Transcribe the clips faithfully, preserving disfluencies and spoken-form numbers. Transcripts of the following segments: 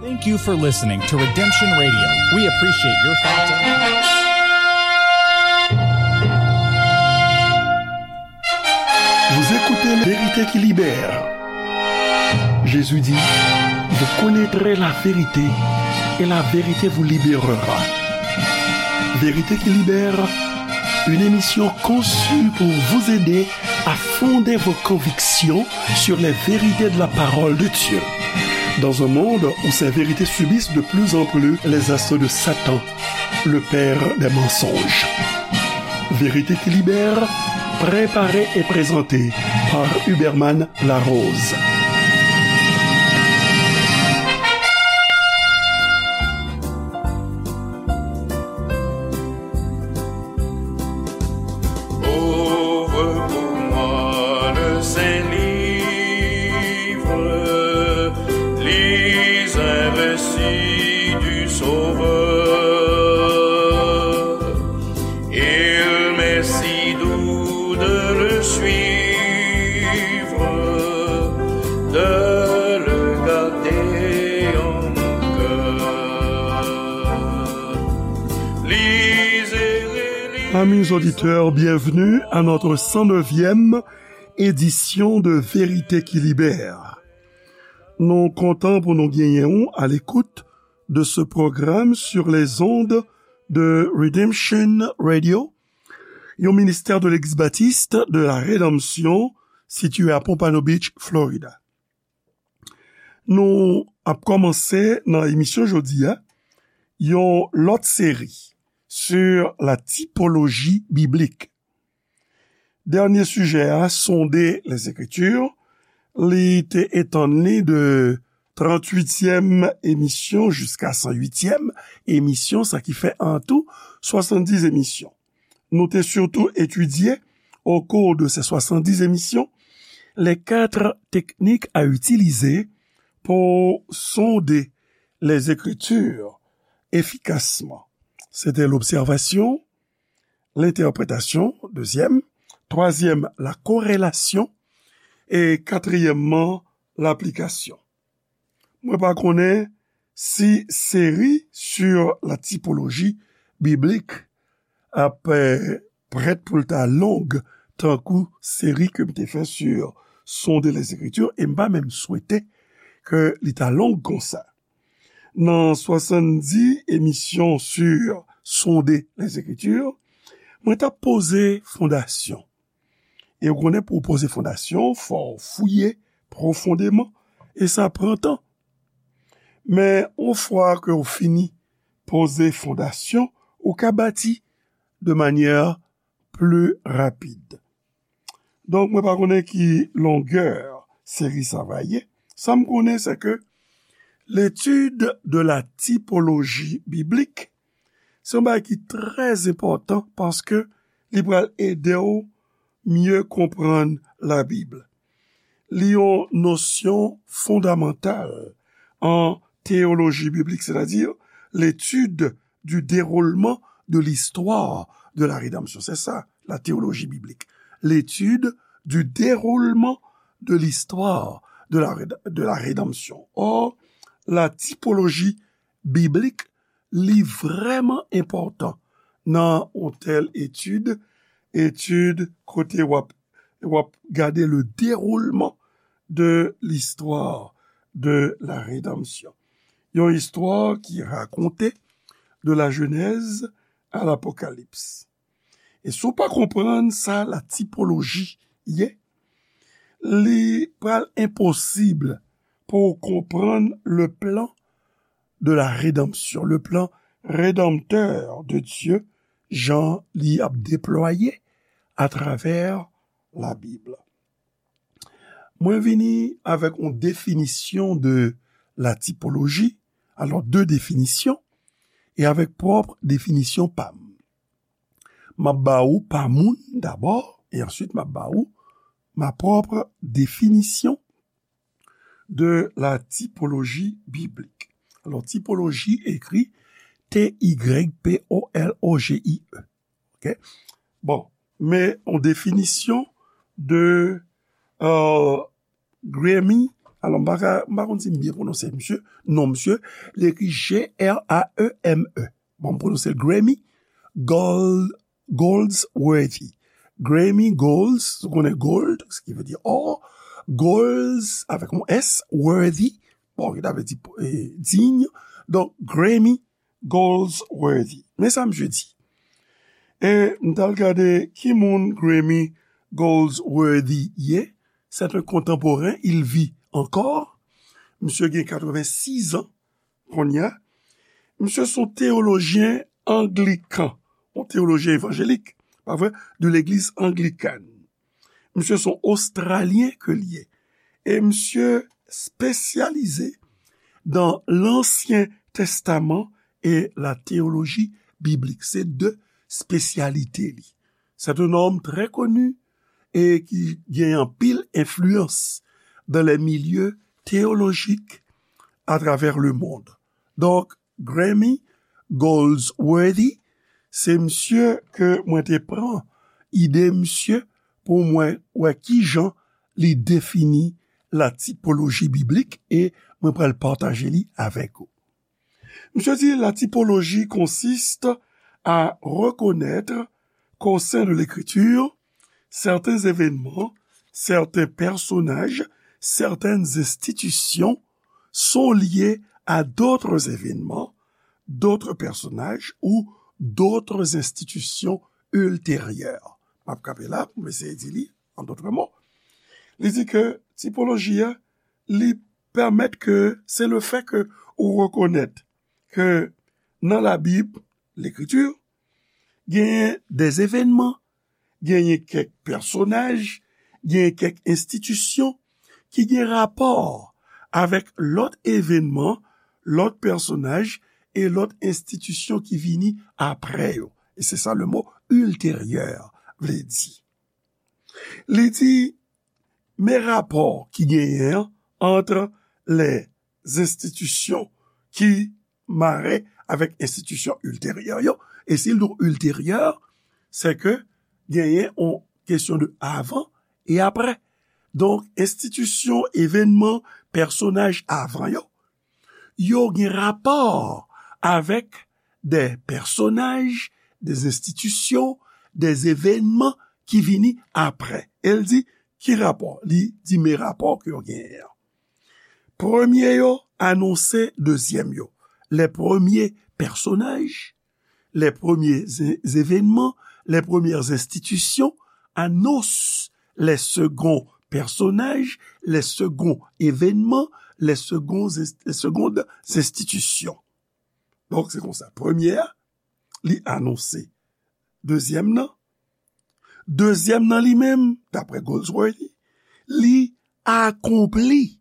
Thank you for listening to Redemption Radio. We appreciate your thoughts and Vous écoutez La Vérité qui libère. Jésus dit, vous connaîtrez la vérité et la vérité vous libérera. Vérité qui libère, une émission conçue pour vous aider à fonder vos convictions sur les vérités de la parole de Dieu. Dans un monde où ces vérités subissent de plus en plus les assauts de Satan, le père des mensonges. Vérité qui libère, préparée et présentée par Huberman Larose. Ouvre pour moi le Saint-Livre, lis un récit du Sauveur. Il m'est si doux de le suivre, de le garder en mon cœur. Lisez et relisez. Amis auditeurs, bienvenue à notre cent neuvième édition de Vérité qui libère. Nou kontan pou nou genyen ou à l'écoute de ce programme sur les ondes de Redemption Radio, yon ministè de Legliz Batis de la Redanmsyon sitiye a Pompano Beach, Florida. Nou ap kòmanse nan emisyon jodi a yon lòt seri sur la typologie biblique. Dènye sijè a, Sonder les Écritures, li te etann li de tranntuityèm emisyon jiska san uityèm emisyon, sa ki fè an tou swasanndis emisyon. Nou te sitou etidye, au cours de ces soixante-dix émissions, les quatre techniques à utiliser pour sonder les Écritures efficacement. C'était l'observation, l'interprétation, deuxième, troisième, la corrélation, et quatrièmement, l'application. Mwen pa konnen si seri sur la typologie biblique ap, eh, prèt pou l ta long tankou seri ke m te fè sur Sonder les Écritures, e m pa menm swete ke li ta long konsa. Nan swasanndis emisyon sur Sonder les Écritures, mwen t ap poze fondasyon. E w konnen, pou w poze fondasyon, fò w fouye pwofondeman, e sa pran tan. Men, yon fwa ke w fini poze fondasyon, ou ka bati de manyè pli rapid. Donk, mwen pa konnen ki longè seri sa va ye. Sa m konnen, se ke l'étude de la typologie biblique, se yon bagay ki trè enpòtan paske li pral ede w mye konprann Labib. Li yon nosyon fondamantal an théologie biblique, c'est-à-dire l'étude du déroulement de l'histoire de la rédemption. C'est ça, la théologie biblique. L'étude du déroulement de l'histoire de la, réd- de la rédemption. Or, la typologie biblique, li vrèman enpòtan nan yon tèl etid, etid kote w ap, w ap gade le déroulement de l'histoire de la rédemption. Yon istwa ki rakonte de la Genèse à l'Apocalypse. E si w pa konprann sa la typologie ye, li pral enposib pou w konprann le plan de la rédemption, le plan rédempteur de Dieu, jan li ap deplwaye atravè Labib. Mwen vini avèk yon definisyon de la typologie, alò de definisyon, e avèk pwòp definisyon pa m. M ap ba ou pa moun dabò, e answit m ap ba ou ma propre définition de la typologie biblique. Alò, typologie ekri T Y P O L O G I E. Ok? Bon, men yon definisyon de, euh, Grammy Alò, m pa ka, m pa konn si m byen pwononse misye, non misye, li ekri G R A E M E. Bon, m pwononse l Grammy Gol- Goldsworthy. Grammy Golds, ou konnen gold, ki vle di or, Golds avèk yon S, worthy, bon, ki ta vle di eh, digne. Donk, Grammy Goldsworthy. Men sa misye di. E m t al gade ki moun Grammy Goldsworthy ye. C'est un contemporain, il vit encore. Misye gen katrevennsis an kounye a. Misye se yon teyolojyen anglikan, yon teyolojyen evanjelik, pa vre, de legliz anglikàn. Misye se yon Ostralyen ke l ye. E misye espesyalize dans l'Ancien Testament et la théologie biblique. Se de espesyalite li. C'est un homme très connu et qui gagne anpil influence dans les milieux théologiques à travers le monde. Donk, Grammy Goldsworthy, se misye ke mwen te pran ide misye pou mwen wè kijan li defini la typologie biblique e mwen pral pataje li avèk ou. Misye di, la typologie consiste à reconnaître qu'au sein de l'Écriture, certains événements, certains personnages, certaines institutions sont liés à d'autres événements, d'autres personnages ou d'autres institutions ultérieures. M ap kanpe la pou m eseye di li, an dòt mo. Li di ke tipoloji a, li pèmèt ke se le fè ke ou rekonèt ke nan Labib, Lekriti, genyen de evènman, genyen kèk pèsonaj, genyen kèk enstitisyon ki gen rapò avèk lòt evènman, lòt pèsonaj e lòt enstitisyon ki vini apre yo. E se sa le mo ultérieur vle di. Li di, men rapò ki genyen an ant lè enstitisyon ki mare avèk enstitisyon ilteryè yo. E si l di w ilteryè, se ke genyen yon kesyon de avan e apre. Donk, enstitisyon, evènman, pèsonaj avan yo, yo gen rapò avèk de pèsonaj, de enstitisyon, de evènman ki vini apre. E l di, ki rapò? Li di, men rapò ke yo genyen an. Premye yo anonse dezyèm yo. Les premiers personnages, les premiers é- événements, les premières institutions annoncent les seconds personnages, les secondes événements, les seconds ins- les secondes institutions. Donk, se konsa. Premye a, li anonse dezyèm nan. Dezyèm nan li menm, daprè Goldsworthy, li akonpli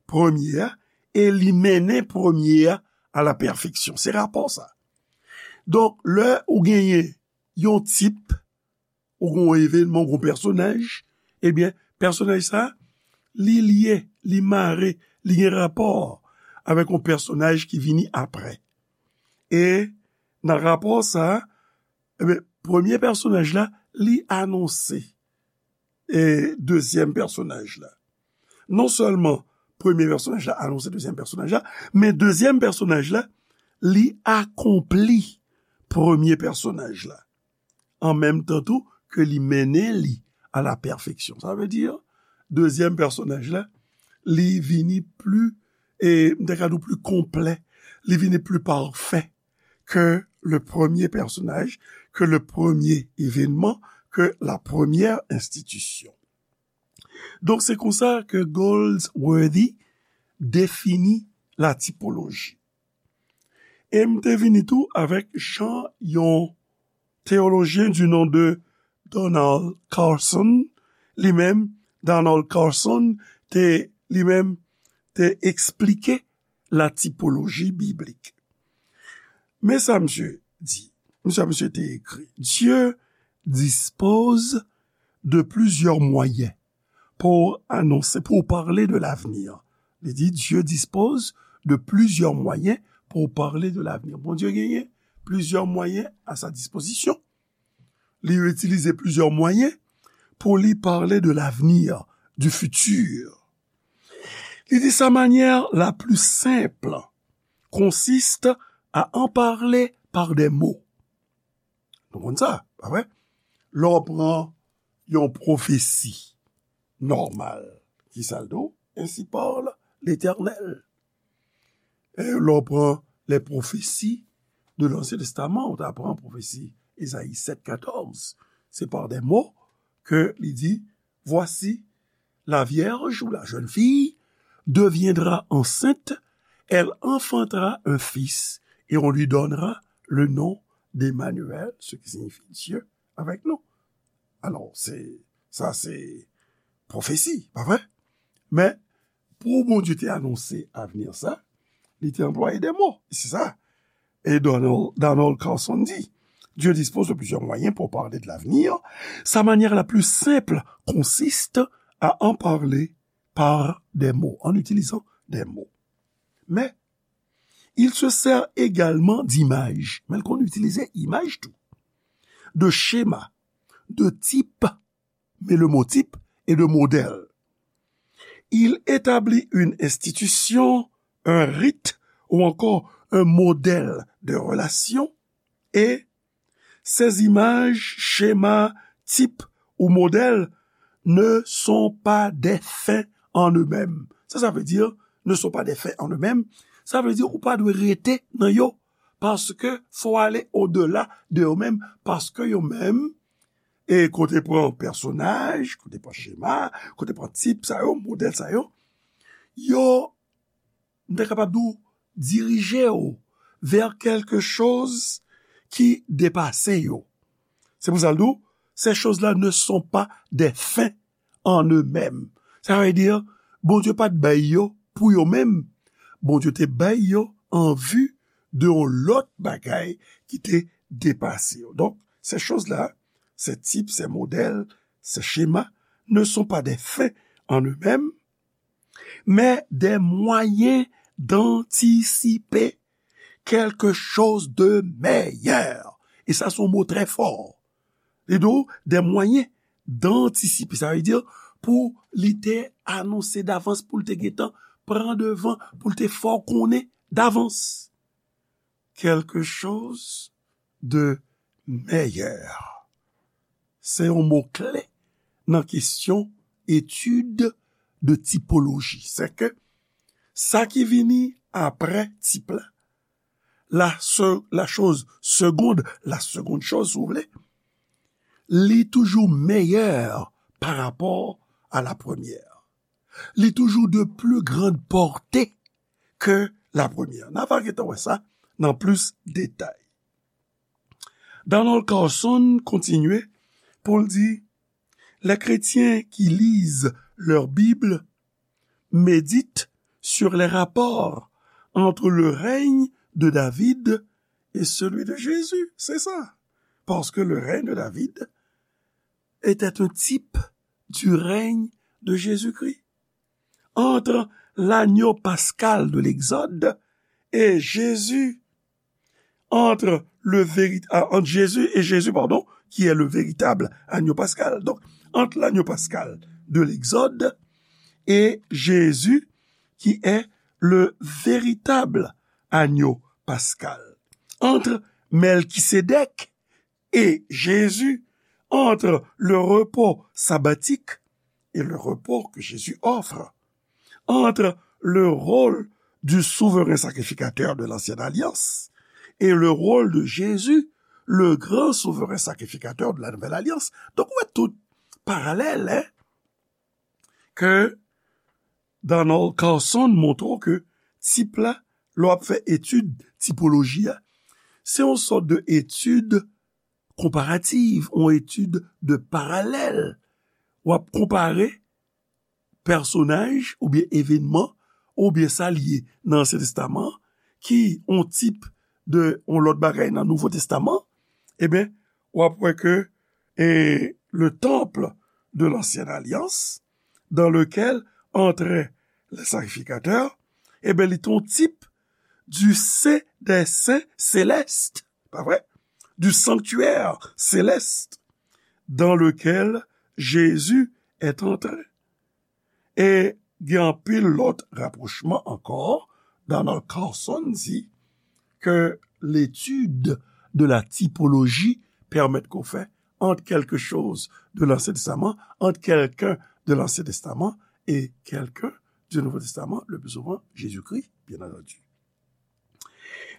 premye a e li mennen premye a a la pèfeksyon. Se rapò sa. Donk, lè ou genyen yon tip, ou gen yon evènman, ou gen yon pèsonaj, ebyen, pèsonaj sa, li lye, li mare, li gen rapò avèk yon pèsonaj ki vini apre. E nan rapò sa, ebyen, premye pèsonaj la, li anonse e dezyèm pèsonaj la. Non sèlman premye pèsonaj la anonse dezyèm pèsonaj la, men dezyèm pèsonaj la, li akonpli premye pèsonaj la. An menm tan tou ke li mennen li a la pèfeksyon. Sa vle di, dezyèm pèsonaj la, li vini pli, e m te ka di w pli konplè, li vini pli pafè ke le premye pèsonaj, ke le premye evènman, ke la premyè enstitisyon. Donk, se konsa ke Goldsworthy defini la tipoloji. E m te vini tou avèk jan yon teyolojyen du nom de Donald Carson, li menm, Donald Carson, te, li menm, te eksplike la typologie biblique. Men sa misye di, men sa misye te ekri, Dieu dispose de plusieurs moyens pour annoncer, pour parler de l'avenir. Li di, Dieu dispose de plusieurs moyens pour parler de l'avenir. Bondye genyen plizyè mwayen a sa dispozisyon. Li itilize plizyè mwayen pou li pale de l'avenir, du futur. Li di, sa manière la plus simple consiste à en parler par des mots. Nou konn sa, pa vre? Lè w pran yon pwofesi nòmal, ki sa l di w? Ainsi parle l'Éternel. E lè w pran les prophéties de l'Ancien Testament, ou ta pran pwofesi Ezayi sèt katòz, se par des mots ke li di, voici, la vierge ou la jeune fille deviendra enceinte, elle enfantera un fils et on lui donnera le nom d'Emmanuel, ce qui signifie Dieu avec nous. Alò, se, sa se pwofesi, pa vre? Men, pou Bondye te anonse avni sa, li te anplwaye de mo. Se sa. Et Donald, Donald Carson dit, Dieu dispose de plusieurs moyens pour parler de l'avenir. Sa manière la plus simple consiste à en parler par des mots, en utilisant des mots. Mais il se sert également d'images. Men l konn itilize imaj tou. De schémas, de types, mais le mot type est de modèle. Il établit une institution, un rite ou encore un modèle de relation et ces images, schémas, types ou modèles ne sont pas des fins en eux-mêmes. Sa, sa vle di, ne sont pas des fins en eux-mêmes. Sa vle di, ou pa dwe rete nan yo, paske fò ale au-delà de yo menm, paske yo menm, e kote pran pèsonaj, kote pran chema, kote pran tip sa yo, modèl sa yo, yo, m ta kapab di w, dirije w vers quelque chose ki depase yo. Se pou sa l di w, ces choses-là ne sont pas des fins en eux-mêmes. Sa vle di, Bondye pa t bay yo pou yo menm. Bondye te bay yo an vi de yon lòt bagay ki te depase yo. Donk, ces choses-là, ces types, ces modèles, ces schémas ne sont pas des fins en eux-mêmes, mais des moyens d'anticiper quelque chose de meilleur. E sa, se yon mo trè fò. Li di w, des moyens d'anticiper. Sa vle di, pou li te anonse davans, pou l te gentan pran devan, pou l te fè w konnen davans. Quelque chose de meilleur. Se yon mo kle nan kesyon etid de tipoloji. Se ke sa ki vini apre tip la, la, se, la chose seconde, la seconde chose, si vous voulez, li toujou meyè pa rapò a la premyè. Li toujou de plus grande portée que la première. N a va gentan wè sa nan plis detay. Donald Carson kontinye pou l di, les chrétiens qui lisent leur Bible méditent sur les rapports entre le règne de David et celui de Jésus. C'est ça. Parce que le règne de David était un type du règne de Jésus-Christ. Entre l'agneau pascal de l'Exode et Jésus, entre le véri-, ah, entre Jésus et Jésus, pardon, qui est le véritable agneau pascal. Donc, entre l'agneau pascal de l'Exode et Jésus, qui est le véritable agneau pascal. Entre Melchisédek et Jésus, entre le repos sabbatique et le repos que Jésus offre, entre le rôle du souverain sacrificateur de l'ancienne alliance et le rôle de Jésus, le grand souverain sacrificateur de la nouvelle alliance. Donk, ou wè tout paralèl, hein, ke Donald Carson montre w ke tip la, lè w ap fè etid tipoloji a, se yon sòt de etid konparativ, yon etid de paralèl. W ap konpare pèsonaj oubyen evènman oubyen sa l ye nan Ansyen Testaman an, ki yon tip de yon lòt bagay nan Nouvo Testaman, ebyen, w ap wè ke, e, le temple de l'ancienne alliance, dans lequel entraient les sacrificateurs, ebyen, li te yon tip du Saint des Saints célestes, pa vre? Du sanctuaire céleste dans lequel Jésus est entré. E Gen anpil lòt rapwochman ankò. Donald Carson di ke l'étude de la typologie pèmèt ke w fè entre quelque chose de l'Ancien Testament, entre quelqu'un de l'Ancien Testament et quelqu'un du Nouveau Testament, le plus souvent Jésus-Christ, bien entendu.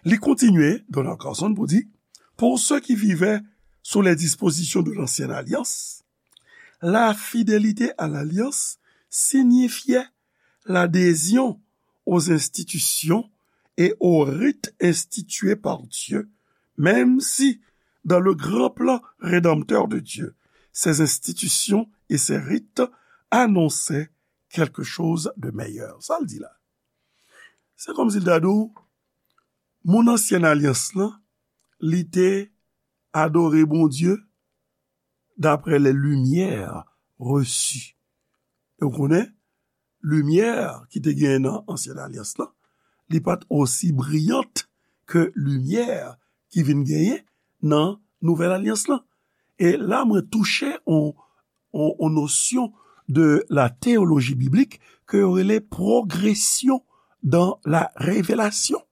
Li kontinye, Donald Carson, pou di, pour ceux qui vivaient sous les dispositions de l'ancienne alliance, la fidélité à l'alliance signifiait l'adhésion aux institutions et aux rites institués par Dieu, même si, dans le grand plan rédempteur de Dieu, ces institutions et ces rites annonçaient quelque chose de meilleur. Sa l di la. Se kòmsi l ta di w, moun ansyen alyans lan, li te adore Bondye d'après les lumières reçues. E w konnen, limyè ki te genyen nan ansyen alyans lan, li pa t osi briyant ke limyè ki vin genyen nan nouvèl alyans lan. E la, mwen touche on, on, on nosyon de la théologie biblique ke yo rele progression dans la révélation.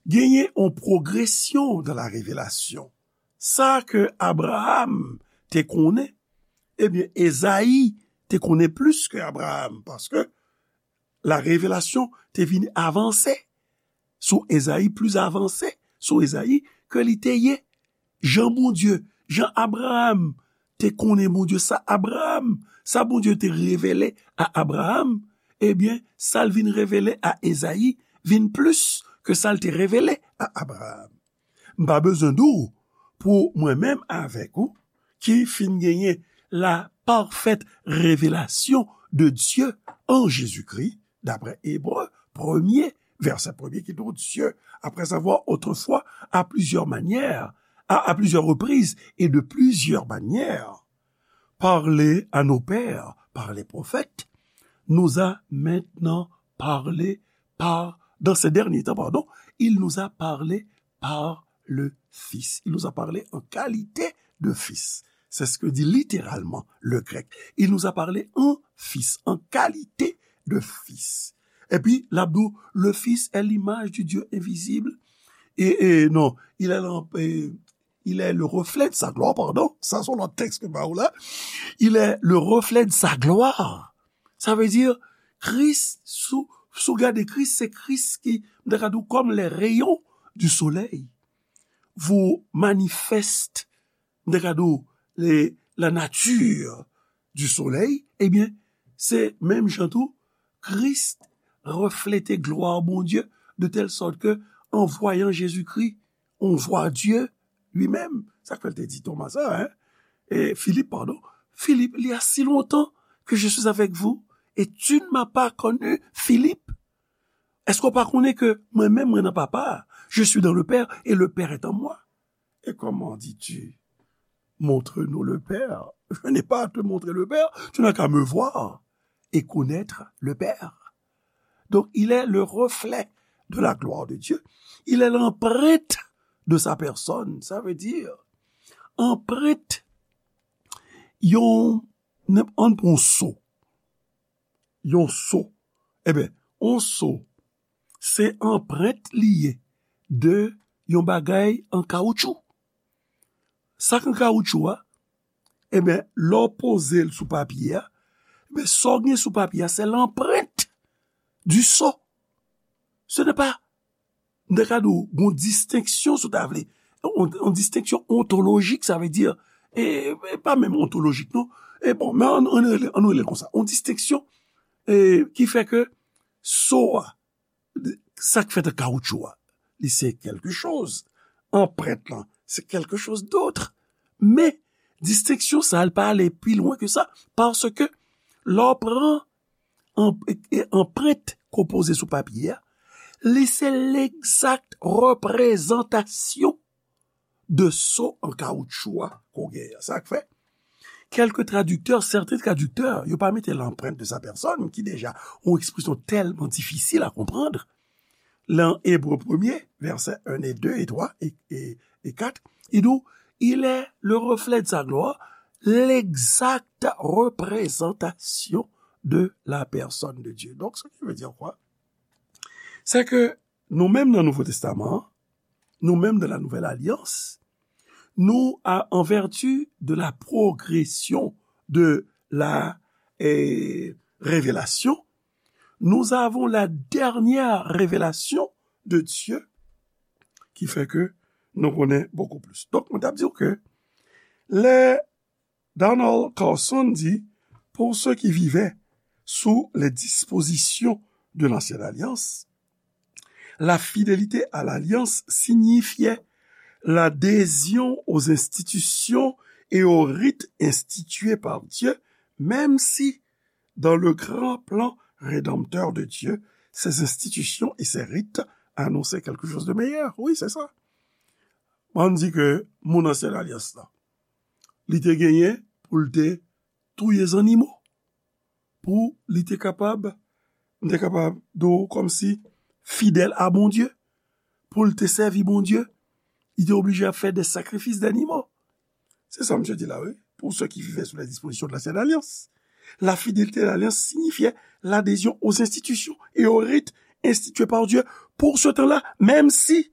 Genyen on progression dans la révélation. Sa ke Abraham te konnen, ebyen, Ezayi te konnen plis ke Abraham, paske la revelasyon te vin avanse sou Ezayi, plis avanse sou Ezayi ke li te ye. Jan Bondye, jan Abraham te konnen Bondye, sa Abraham, sa Bondye te revele a Abraham, ebyen, sa l vin revele a Ezayi vin plis ke sa l te revele a Abraham. M pa bezwen di w pou mwen menm avèk ou ki fin genyen la parfaite révélation de Dieu en Jésus-Christ, d'après Hébreux premier, verset premier, qui dit, Dieu, après avoir autrefois, à plusieurs manières, à, à plusieurs reprises et de plusieurs manières, parlé à nos pères par les prophètes, nous a maintenant parlé par, dans ces derniers temps, pardon, il nous a parlé par le Fils. Il nous a parlé en qualité de Fils. C'est ce que dit littéralement le grec. Il nous a parlé en Fils, en qualité de Fils. Epi, l ap di w, le Fils est l'image du Dieu invisible. Et, et non, il est l'em-, et il est le reflet de sa gloire, pardon. Sa, se yon lòt tèks ke m ba ou la. Il est le reflet de sa gloire. Sa vle di, Kris, si w, si w gade Kris, se Kris ki, m ta ka di w, comme les rayons du soleil, vous manifeste, m ta ka di w, les, la nature du soleil, ebyen, se menm jan tou, Kris reflete glwa Bondye, de telle sorte que, en voyant Jésus-Christ, on voit Dieu lui-même. Sa k fè l te di Toma sa, hein? E Filip, padon. Filip, il y a si longtemps que je suis avec vous et tu ne m'as pas connu, Philippe. Èske w pa konnen ke mwen menm, mwen nan Papa a? Je suis dans le Père et le Père est en moi. Et comment dis-tu, montre-nous le Père? Je n'ai pas à te montrer le Père, tu n'as qu'à me voir et connaître le Père. Donc, il est le reflet de la gloire de Dieu. Il est l'empreinte de sa personne. Sa vle di, anprent yon, ann pran yon so. Yon so. Eben, yon so, se anprent li ye de yon bagay an kawotchou. Sa k an kawotchou a, eben, lè w poze l sou papye a, eben, sa w gen sou papye a, se l'empreinte du sceau. Ce n'est pas, m ta ka di w, gon distenksyon, si w ta vle. On, on distenksyon ontolojik, sa vle di, e, e pa menm ontolojik, non. E bon, men ann, ann rele, ann rele l konsa. On distenksyon, e, ki fè ke so a, sa k fèt an kawotchou a, li se quelque chose. Anprent lan, se quelque chose d'autre. Men, distenksyon sa a, li pa ale pi lwen ke sa, paske lè w pran an-, e, e, anprent ke w poze sou papye a, li se legzak reprezantasyon de so an kawotchou a ke w genyen an. Sa k fè, quelques traducteurs, certains traducteurs, yo pa mete l'empreinte de sa personne, ki deja yon ekspresyon tèlman difisil a konprann. Lan Ebre premye, vèsè en e de e twa e, e, e kat, li di w, il est le reflet de sa gloire, l'exacte représentation de la personne de Dieu. Donc, ce qui veut dire quoi? C'est que nous-mêmes dans le Nouveau Testament, nous-mêmes dans la Nouvelle Alliance, nous, à- en vertu de la progression de la eh, révélation, nous avons la dernière révélation de Dieu qui fait que nous connaissons beaucoup plus. Donc, on a dit que les Donald Carson dit, pour ceux qui vivaient sous les dispositions de l'ancienne alliance, la fidélité à l'alliance signifiait l'adhésion aux institutions et aux rites institués par Dieu, même si, dans le grand plan rédempteur de Dieu, ces institutions et ces rites annonçaient quelque chose de meilleur. Oui, c'est ça. Mwen di ke moun ansyen alyans la, li te genyen pou l te touye zannimo, pou li te kapab, m te kapab di w kòmsi fidèl a Bondye, pou l te sèvi Bondye, li te oblije ap fè de sakrifis dannimo. Se sa misye di la, wi. Pour ceux qui vivaient sous les dispositions de l'ancienne alliance, la fidélité à l'alliance signifiait l'adhésion aux institutions et aux rites institués par Dieu pour ce temps-là, même si,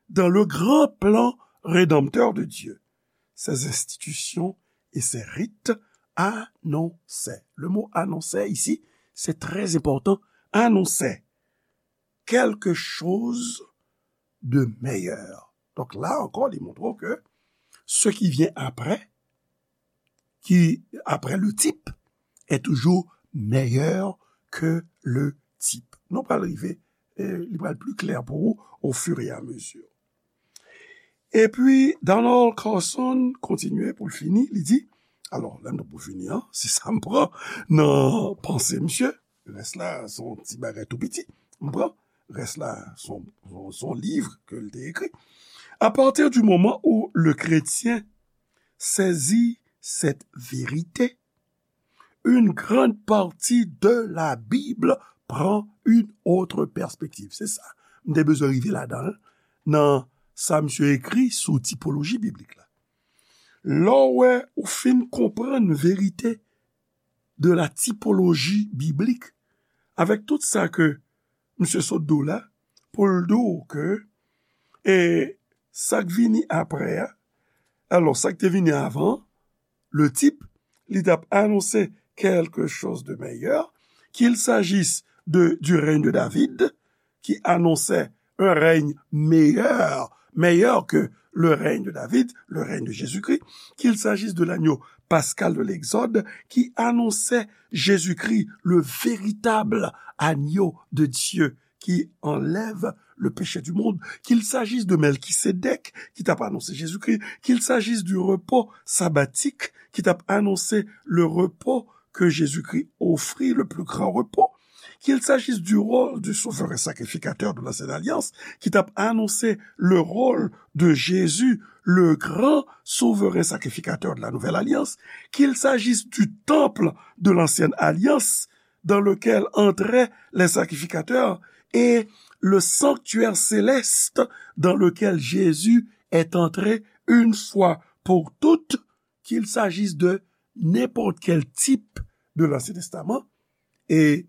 dans le grand plan rédempteur de Dieu, ces institutions et ces rites annonçaient. Le mot annonçaient ici, c'est très important. Annonçaient quelque chose de meilleur. Donc là encore, li montre ke ce qui vient après, qui après le type, est toujours meilleur que le type. Nou pral rive, eh, li pral pli klè pou ou au fur et à mesure. Epi, Donald Carson kontinye pou l fini, li di, alò, lè m t ap pou fini an, se sa m pran nan panse misye, rès la, se yon ti bagay tou piti, m pran, rès la, se yon, se yon, se yon liv ke l te ekri. À partir du moment où le chrétien saisit cette vérité, une grande partie de la Bible prend une autre perspective. Se sa. M te bezwen rive ladan, nan sa misye ekri sou tipoloji biblik la. Lè w wè ou fin konprann verite de la tipoloji biblik, avèk tout sa ke misye sot di w la, pou l di w ke, e, sa k vini apre a, alò, sa k te vini avan, le type, li t ap anonse quelque chose de meilleur, qu'il s'agisse de, du règne de David, qui annonçait un règne meilleur, meilleur que le règne de David, le règne de Jésus-Christ, qu'il s'agisse de l'agneau pascal de l'Exode, qui annonçait Jésus-Christ, le véritable agneau de Dieu qui enlève le péché du monde, qu'il s'agisse de Melchisédek, ki t ap anonse Jezikri, qu'il s'agisse du repos sabbatique, ki t ap anonse le repos que Jésus-Christ offrit, le plus grand repos, qu'il s'agisse du rôle du souverain sacrificateur de l'ancienne alliance, ki t ap anonse le rôle de Jésus, le grand souverain sacrificateur de la nouvelle alliance, qu'il s'agisse du temple de l'ancienne alliance, dans lequel entraient les sacrificateurs, et le sanctuaire céleste dans lequel Jésus est entré une fois pour toutes, qu'il s'agisse de n'importe quel type de l'Ancien Testament, e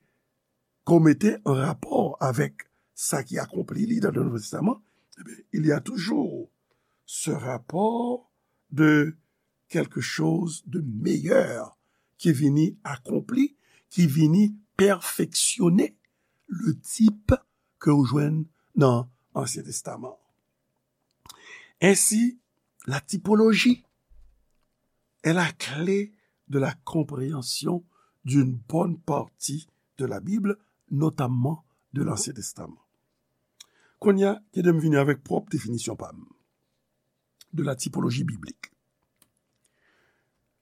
ke w mete an rapò avèk sa ki akonpli li dans le Nouveau Testament, eh bien, il y a toujours ce rapport de quelque chose de meilleur ki vini akonpli, ki vini pèfeksyone le type ke w jwenn nan Ansyen Testaman. Ainsi, la typologie est la clé de la compréhension d'une bonne partie de la Bible, notamment de l'Ancien Testament. Kounye a, kite m vini avèk pwòp definisyon pa m de la typologie biblique.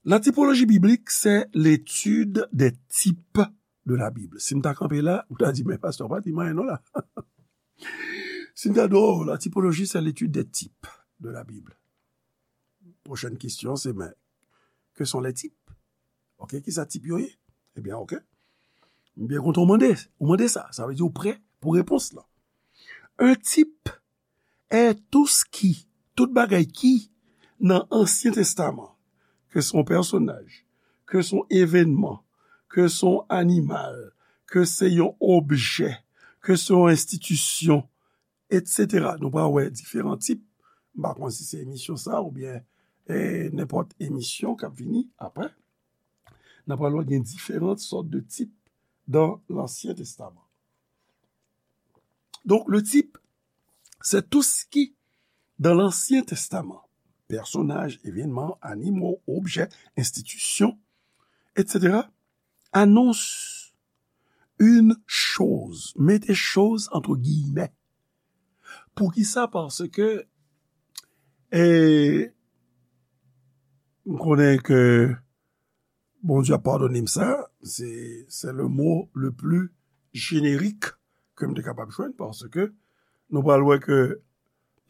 La typologie biblique, c'est l'étude des types de la Bible. Si m ta kanpe la, ou ta di, "Men pastè, pa di m anyen non la." Si m ta di, "Oh, la typologie, c'est l'étude des types de la Bible." Prochaine question, c'est, "Mais, que sont les types?" Ok, kisa tip yo ye? Ebyen, ok. M byen kontan ou mande, ou mande sa. Sa vle di ou prè pou repons lan. Un type est tout ce qui, tout bagay ki nan Ansyen Testaman, ke se yon pèsonaj, ke se yon evènman, ke se yon animal, ke se yon objè, ke se yon enstitisyon, etsetera. Nou pral wè diferan tip. M pa konn si se emisyon sa oubyen eh, nenpòt emisyon k ap vini apre. N ap pral wè gen diferan sòt de tip dans l'Ancien Testament. Donc, le type, c'est tout ce qui, dans l'Ancien Testament, personnages, événements, animaux, objets, institutions, et cetera, annonce une chose. Mettez chose entre guillemets. Poukisa? Paske, e, m konnen ke Bondye ap padone m sa, se, se le mot le plus générique ke m te kapab jwenn, paske nou pral wè ke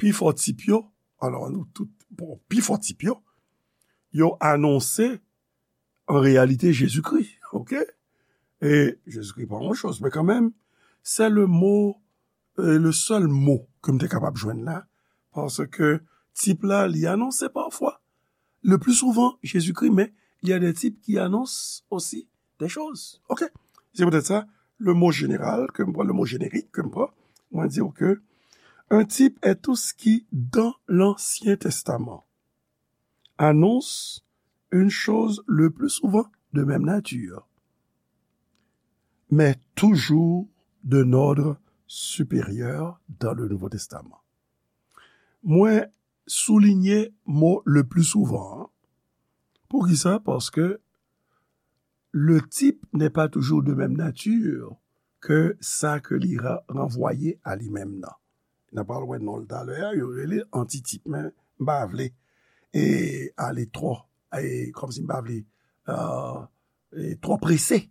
pi fò tip yo, alò nou tout, bon, pi fò tip yo, yo anonse an reyalite Jezikri, oke? E Jezikri pa yon choz, men kanmenm, se le mot, e le sèl mo ke m te kapab jwenn la, paske tip la, li anonse pafwa, le plus souvent, Jezikri, men il y a des types qui annoncent aussi des choses. Oke? Se poutèt sa, le mot général ke m pran, le mot générique ke m pran, mwen di w ke un type est tout ce qui, dans l'Ancien Testament, annonce une chose le plus souvent de même nature, mais toujours d'un ordre supérieur dans le Nouveau Testament. Mwen soulinye mo le plus souvent an. Poukisa? Paske le type n'est pas toujours de même nature que sa ke li ra-, ranvwaye a li menm nan. N ap pral wè non l talè a, yo rele antitip, men m pa vle e ale twò, e kòmsi m pa vle, e, e twò prese.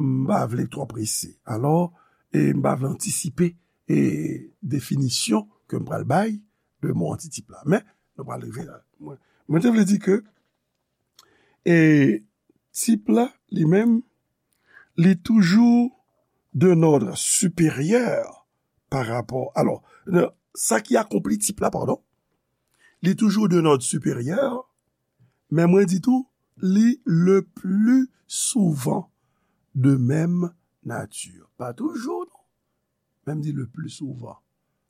M pa vle twò prese. Alò, e m pa vle antisipe e definisyon ke m pral bay de mo antitip la. Men, nou pral rive la. Mwen, mwen te vle di ke, e tip la, li menm, li toujou d'un ordre supérieur par rapport. Alò, sa ki akonpli tip la, padon, li toujou d'un ordre supérieur, men mwen di tou, li le plus souvent de même nature. Pa toujou, non. Men m di le plus souvent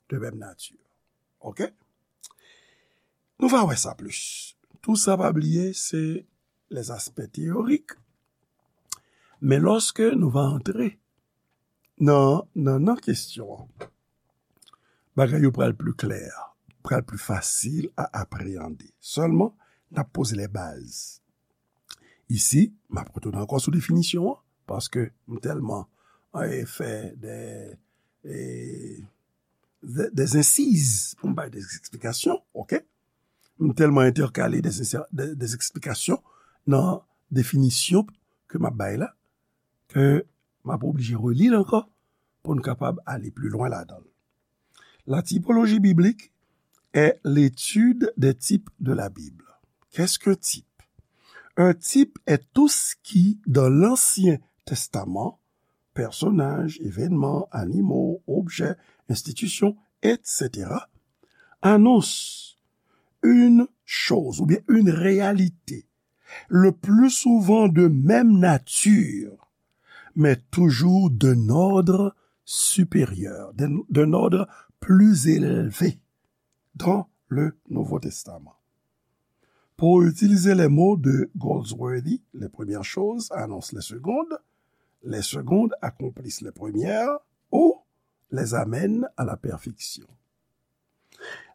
de même nature. Oke? Nou va wè sa plis. Tou sa, pa bliye, se les aspects théoriques. Men lòske nou va antre nan, nan, nan kesyon an, bagay yo pral pli klè, pral pli fasil a apreyande. Sèlman, n ap poze les bases. Isi, m ap retounen ankò sou definisyon an, paske m tèlman, e, fè de, e, de, des incises pou m bay des explications, oke? M tèlman entèkale des, des, des explications nan definisyon ke m ap bay la, ke m ap oblije reli l ankò pou n kapab ale pli lwen ladan l. La typologie biblique est l'étude des types de la Bible. Qu'est-ce qu'un type? Un type est tout ce qui, dans l'Ancien Testament, personnages, événements, animaux, objets, institutions, et cetera, annonce une chose ou bien une réalité, le plus souvent de même nature, mais toujours d'un ordre supérieur, d'un, d'un ordre plus élevé dans le Nouveau Testament. Pour utiliser les mots de Goldsworthy, les premières choses annoncent les secondes, les secondes accomplissent les premières ou les amènent à la perfection.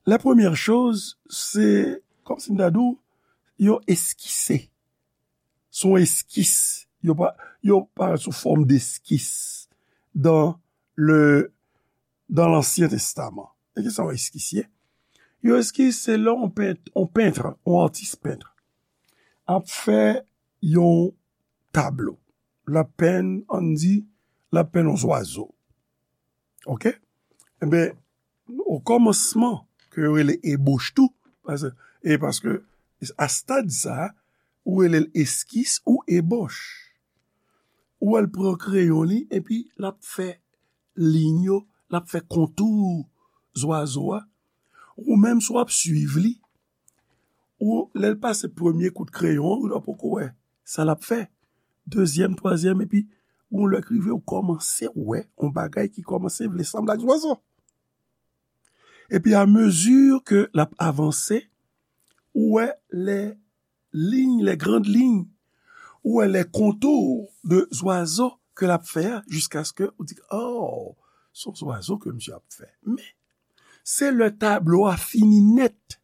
Les premières choses, se kòmsi m ta di w, yo eskise. Se yon eskis. Yo pa, yo parèt sou fòm deskis dans le, dans l'Ancien Testament. E ki sa yon eskis ye? Yon eskis, se lè yon pent, yon pent, yon atis pent ap fè yon tablo. L ap penn, ann di, l ap penn yon zwazo. Oke? Enben, o kòmansman, ke yo rele ebòch tou, paske, e paske a stad sa a, ou rele l eskis ou ebòch. Ou wè l pran kreyon li, epi l ap fè liy yo, l ap fè kontou zwazo a. Ou menm, si w ap swiv li, ou, lè l pase premye kout kreyon an, ou poko wè sa l ap fè. dezyèm, twazyèm, epi yon lè k rive, ou kòmanse wè yon bagay ki kòmanse vle sanble ak zwazo. Epi, amezi ke l ap avanse, ou wè lè liy, lè grand liy, ou wè lè kontou de zwazo ke l ap fè a, jiskaske ou di, oh, se yon zwazo ke misye ap fè. Men, se lè tablo a fini nèt,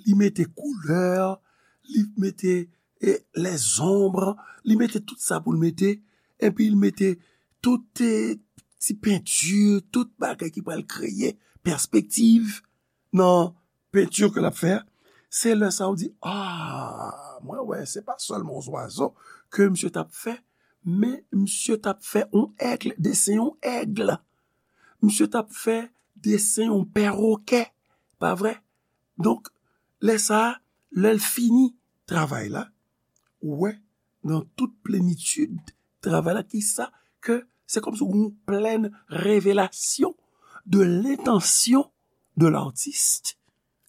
li mete koulè, li mete, e, lèzonb, li mete tout sa pou l mete, epi l mete tout, e, ti penti, tout bagay ki pral kreye pèspektiv nan penti ke l ap fè a, se lè sa a ou di, ah, mwen wè, se pa sèlman yon zwazo ke misye t ap fè, men misye t ap fè yon èg, desen yon èg. Misye t ap fè desen yon pèwokè, pa vre? Donk, lè sa a, lè l fini travay la, ou wè, nan tout plenitid travay la, ki sa ke se kòmsi yon plèn revelasyon de lentansyon de l'artiste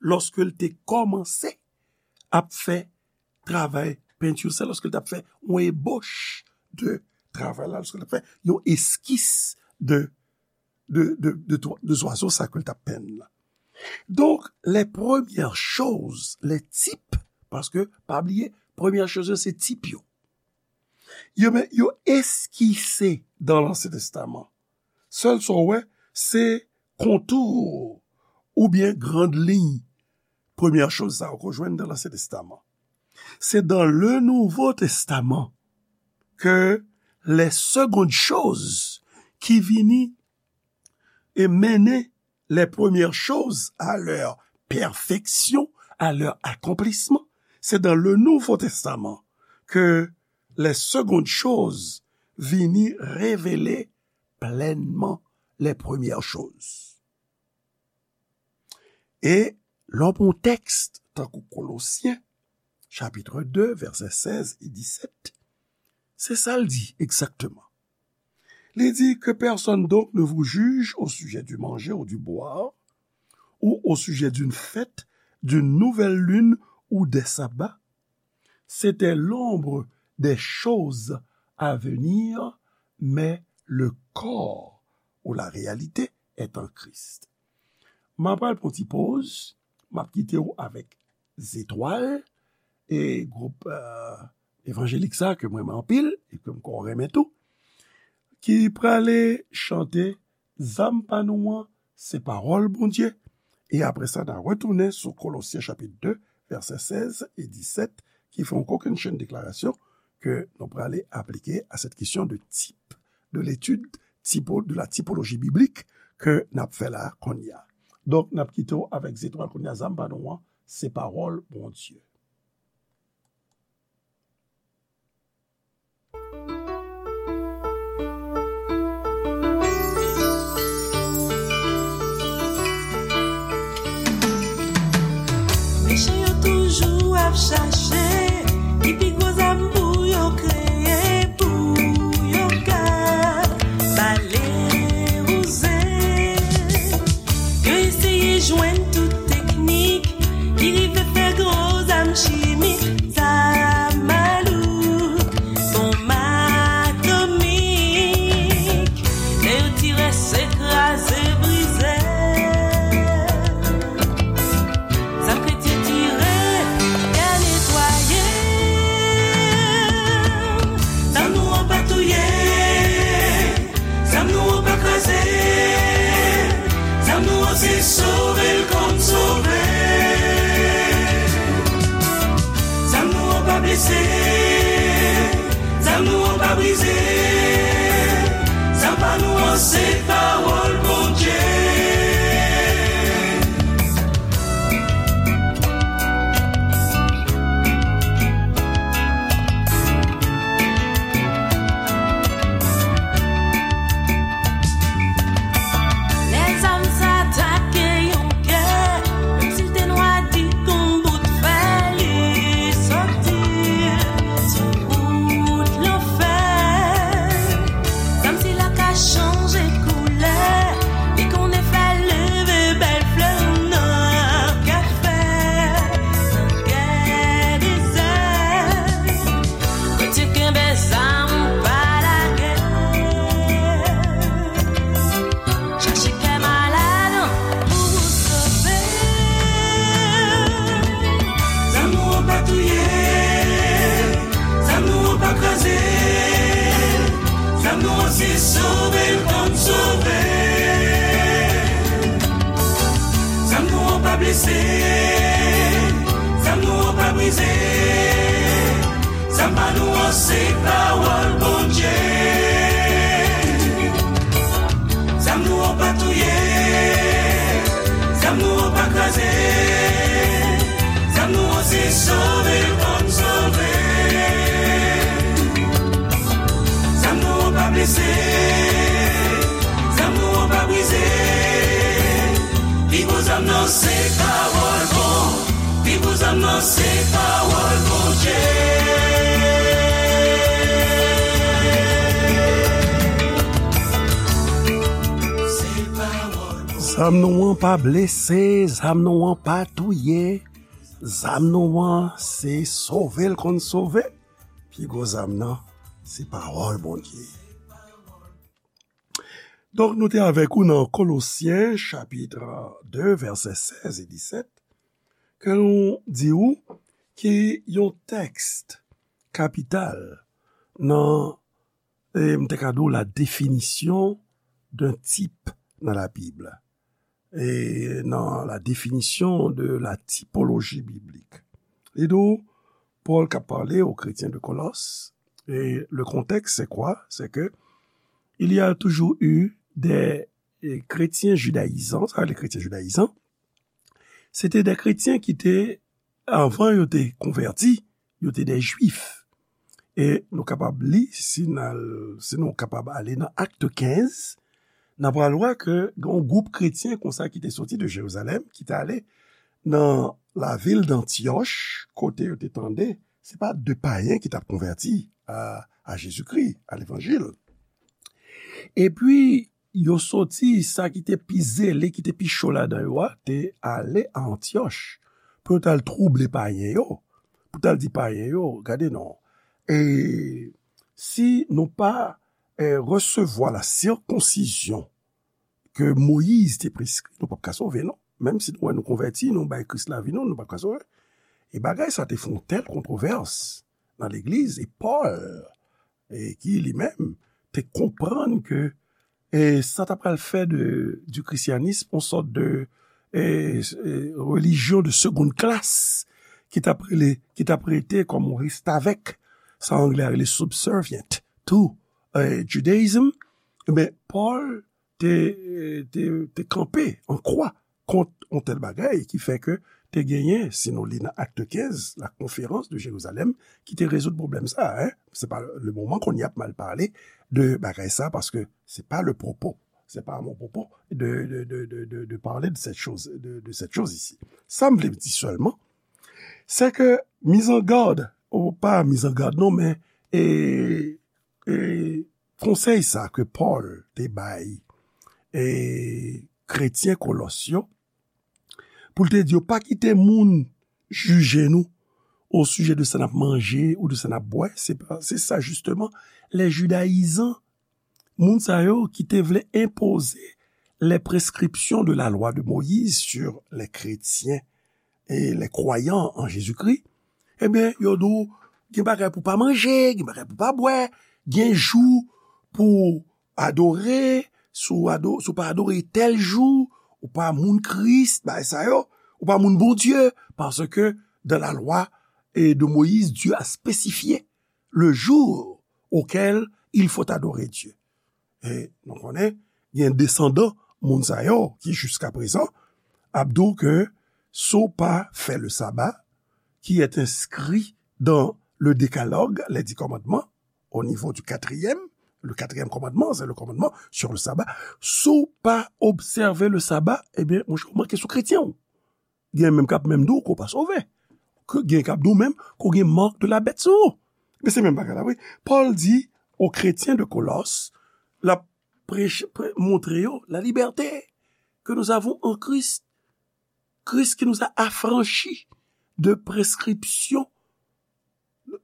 lòske l te kòmanse ap fè travay penti sa, lòske l t ap fè yon ebòch de travay la, lòske l t ap fè yon eskis de, de, de, de, de zwazo sa ke l t ap penn la. Donk, les premières choses, les types, paske, pa bliye, premyè choz yo se tip yo. Yo, men, yo eskise dans l'Ancien Testament. Sèl sa w wè, se kontou oubyen grand liy premyè choz sa yo ke w jwenn dans l'Ancien Testament. C'est dans le Nouveau Testament que les secondes choses ki vini e mennen les premières choses à leur perfection, à leur accomplissement. C'est dans le Nouveau Testament que les secondes choses vini revele plenman les premières choses. E lè w pran yon tèks tankou Kolosyen, chapit de, vèsè sèz e disèt, se sa l di egzakteman. Li di, que personne donc ne vous juge au sujet du manger ou du boire, ou au sujet d'une fête, d'une nouvelle lune ou des sabbats. C'était l'ombre des choses à venir, mais le corps ou la réalité est en Christ. M ap pral pran ti poz, m ap kite w avèk Zetwal, e gwoup, euh, evanjelik sa ke mwen renmen anpil, e ke m kwè w renmen tou, ki prale chante Zam pa nou an, se pawòl Bondye. E apre sa, n a retounen sou Kolosyen chapit de, vèsè sèz e disèt, ki fè yon kokennchenn deklarasyon ke nou prale aplike à cette question de type, de l'étude typo, de la typologie biblique ke n ap fè la kounye a. Donk, n ap kite w avèk Zetwal kounye a, Zam pa nou an, se pawòl Bondye. Mechan yo toujou ap chache ki pi gwo zam pou yo kreye, pou yo ka bale wouze. Yo eseye jwenn tout teknik ki rive fè gwo zam chimik, zam malouk, bonm atomik. Lè yo tire, se kraze, brize. Zam kretyen tire, y a netwaye. Zam nou an pa touye. Zam nou an pa kraze. Zam nou an se sove l kòm sove. Se zam nou an pa brize, zam pa nou an se pawòl Bondye. Zam nou an pa touye, zam nou an pa kraze, zam nou an se sove l konn sove. Zam nou an pa blese, zam nou an pa brize. Pi gwo zam nan se pawòl bon. Pi gwo zam nan se pawòl Bondye. Se pawòl Bondye. Zam nou an pa blese, zam nou an pa touye. Zam nou an se sove l konn sove. Pi gwo zam nan se pawòl Bondye. Donk, nou te avèk ou nan Kolosyen, chapit de, vèsè sèz e disèt, ke nou di ou ki yon tèks kapital nan, e, m te ka di w, la définition d'un type dans la Bible. E nan la définition de la typologie biblique. Li di w, Pòl k ap pale aux chrétiens de Colosses, et le contexte, c'est quoi? C'est que il y a toujours eu des, eh, chrétiens judaïsants, sa, les chrétiens judaïsants, se te de kretyen ki te, anvan yo te konvèti, yo te de jwif. E nou kapab li, si n al, si nou kapab ale nan Akt kenz, n ap pral wè ke gen yon gwoup kretyen konsa ki te soti de Jerizalèm, ki te ale nan lavil d'Antiòch, kote yo te tande, se pa de payen ki t ap konvèti a, a Jezikri, a levanjil. Epi, yo soti, sa ki te pi zele, ki te pi cho ladan yo a, te ale a Antiòch pou yo t al twouble payen yo, pou t al di payen yo, gade non, e si nou pa, e, resevwa la sirkonsizyon ke Moyiz te preskri, nou p ap ka sove, non. Menm si nou wè nou konvèti, nou bay Kris lavi nou, nou p ap ka sove. E bagay sa te fè yon tèl kontwovès nan legliz, e Pòl, e ki li menm te konprann ke, e sa ta pral fè de, du christianisme yon sòt de, e, e, religion de seconde classe, ki t ap rele, ki t ap rete kòm yon restavèk, sa anglè a rele subservient to, e, Judaism, ebyen, Pòl te, te, te kanpe an kwa kont yon tèl bagay ki fè ke te genyen, si nou li nan Akt kenz, la conférence de Jérusalem, ki te rezoud pwoblèm sa, hein. Se pa le moman kounye a pou m al pale de bagay sa, paske se pa le propos. C'est pas mon propos de, de, de, de, de, de parler de cette chose, de, de cette chose ici. Sa m vle di sèlman, se ke mizangad, ou pa mizangad non, men, e, e, konsèy sa ke Pòl te bay, e, kretyen Kolòs yo, pou l te di yo, pa kite moun jije nou o sijè de sa n ap manje ou de sa n ap bwè, se pa, se sa jisteman, les judaïsants, moun sa yo ki te vle enpoze les prescriptions de la loi de Moïse sur les chrétiens et les croyants en Jésus-Christ, ebyen, yo di w, gen bagay pou pa manje, gen bagay pou pa bwè, gen jou pou adore, si w ado-, si w pa adore tèl jou, ou pa moun Kris, bagay sa yo, ou pa moun Bondye, parce que dans la loi, eh, de Moïse, Dieu a spécifié le jour auquel il faut adorer Dieu. E nou konnen, gen desandan moun sa yo ki jiska prezan ap di w ke si w pa fè le sabbat, qui est inscrit dans le décalogue, les dix commandements, au niveau du quatrième, le quatrième commandement, c'est le commandement sur le sabbat. Si w pa obsève le sabbat, ebyen, monchè, ou manke sou kretyen w. Gen menm k ap menm di w ke w pa sove. Ke gen k ap di w menm ke w gen mark de la bèt sou ou. Men se menm bagay la, wi. Pòl di aux chrétiens de Colosses, l ap preche, pre-, montre yo la liberté que nous avons en Christ. Christ qui nous a affranchis de prescriptions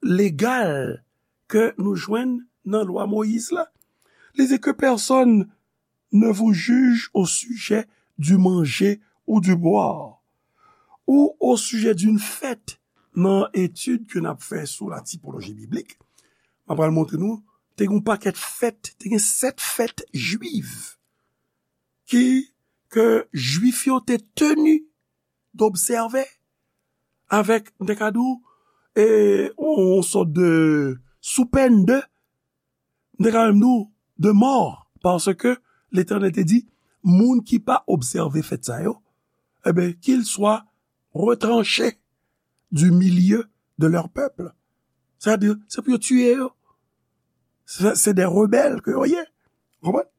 légales ke nou jwenn nan lwa Moyiz la. Li di que personne ne vous juge au sujet du manger ou du boire, ou au sujet d'une fête. Nan etid ke n ap fè sou la tipoloji biblik, m ap pral montre nou, te gen yon pakèt fèt, te gen sèt fèt jwiv ki, ke Jwif yo te teni d'observer avec, m te ka di w, e, yon, yon sòt de, sou pèn de, m te ka menm di w, de mò, paske Letènèl te di, moun ki pa obsève fèt sa yo, e ben, qu'ils soient retranchés du milieu de leur peuple. Sètadi, se pou yo tiye yo. Se, se de rebèl ke yo ye. Konprann?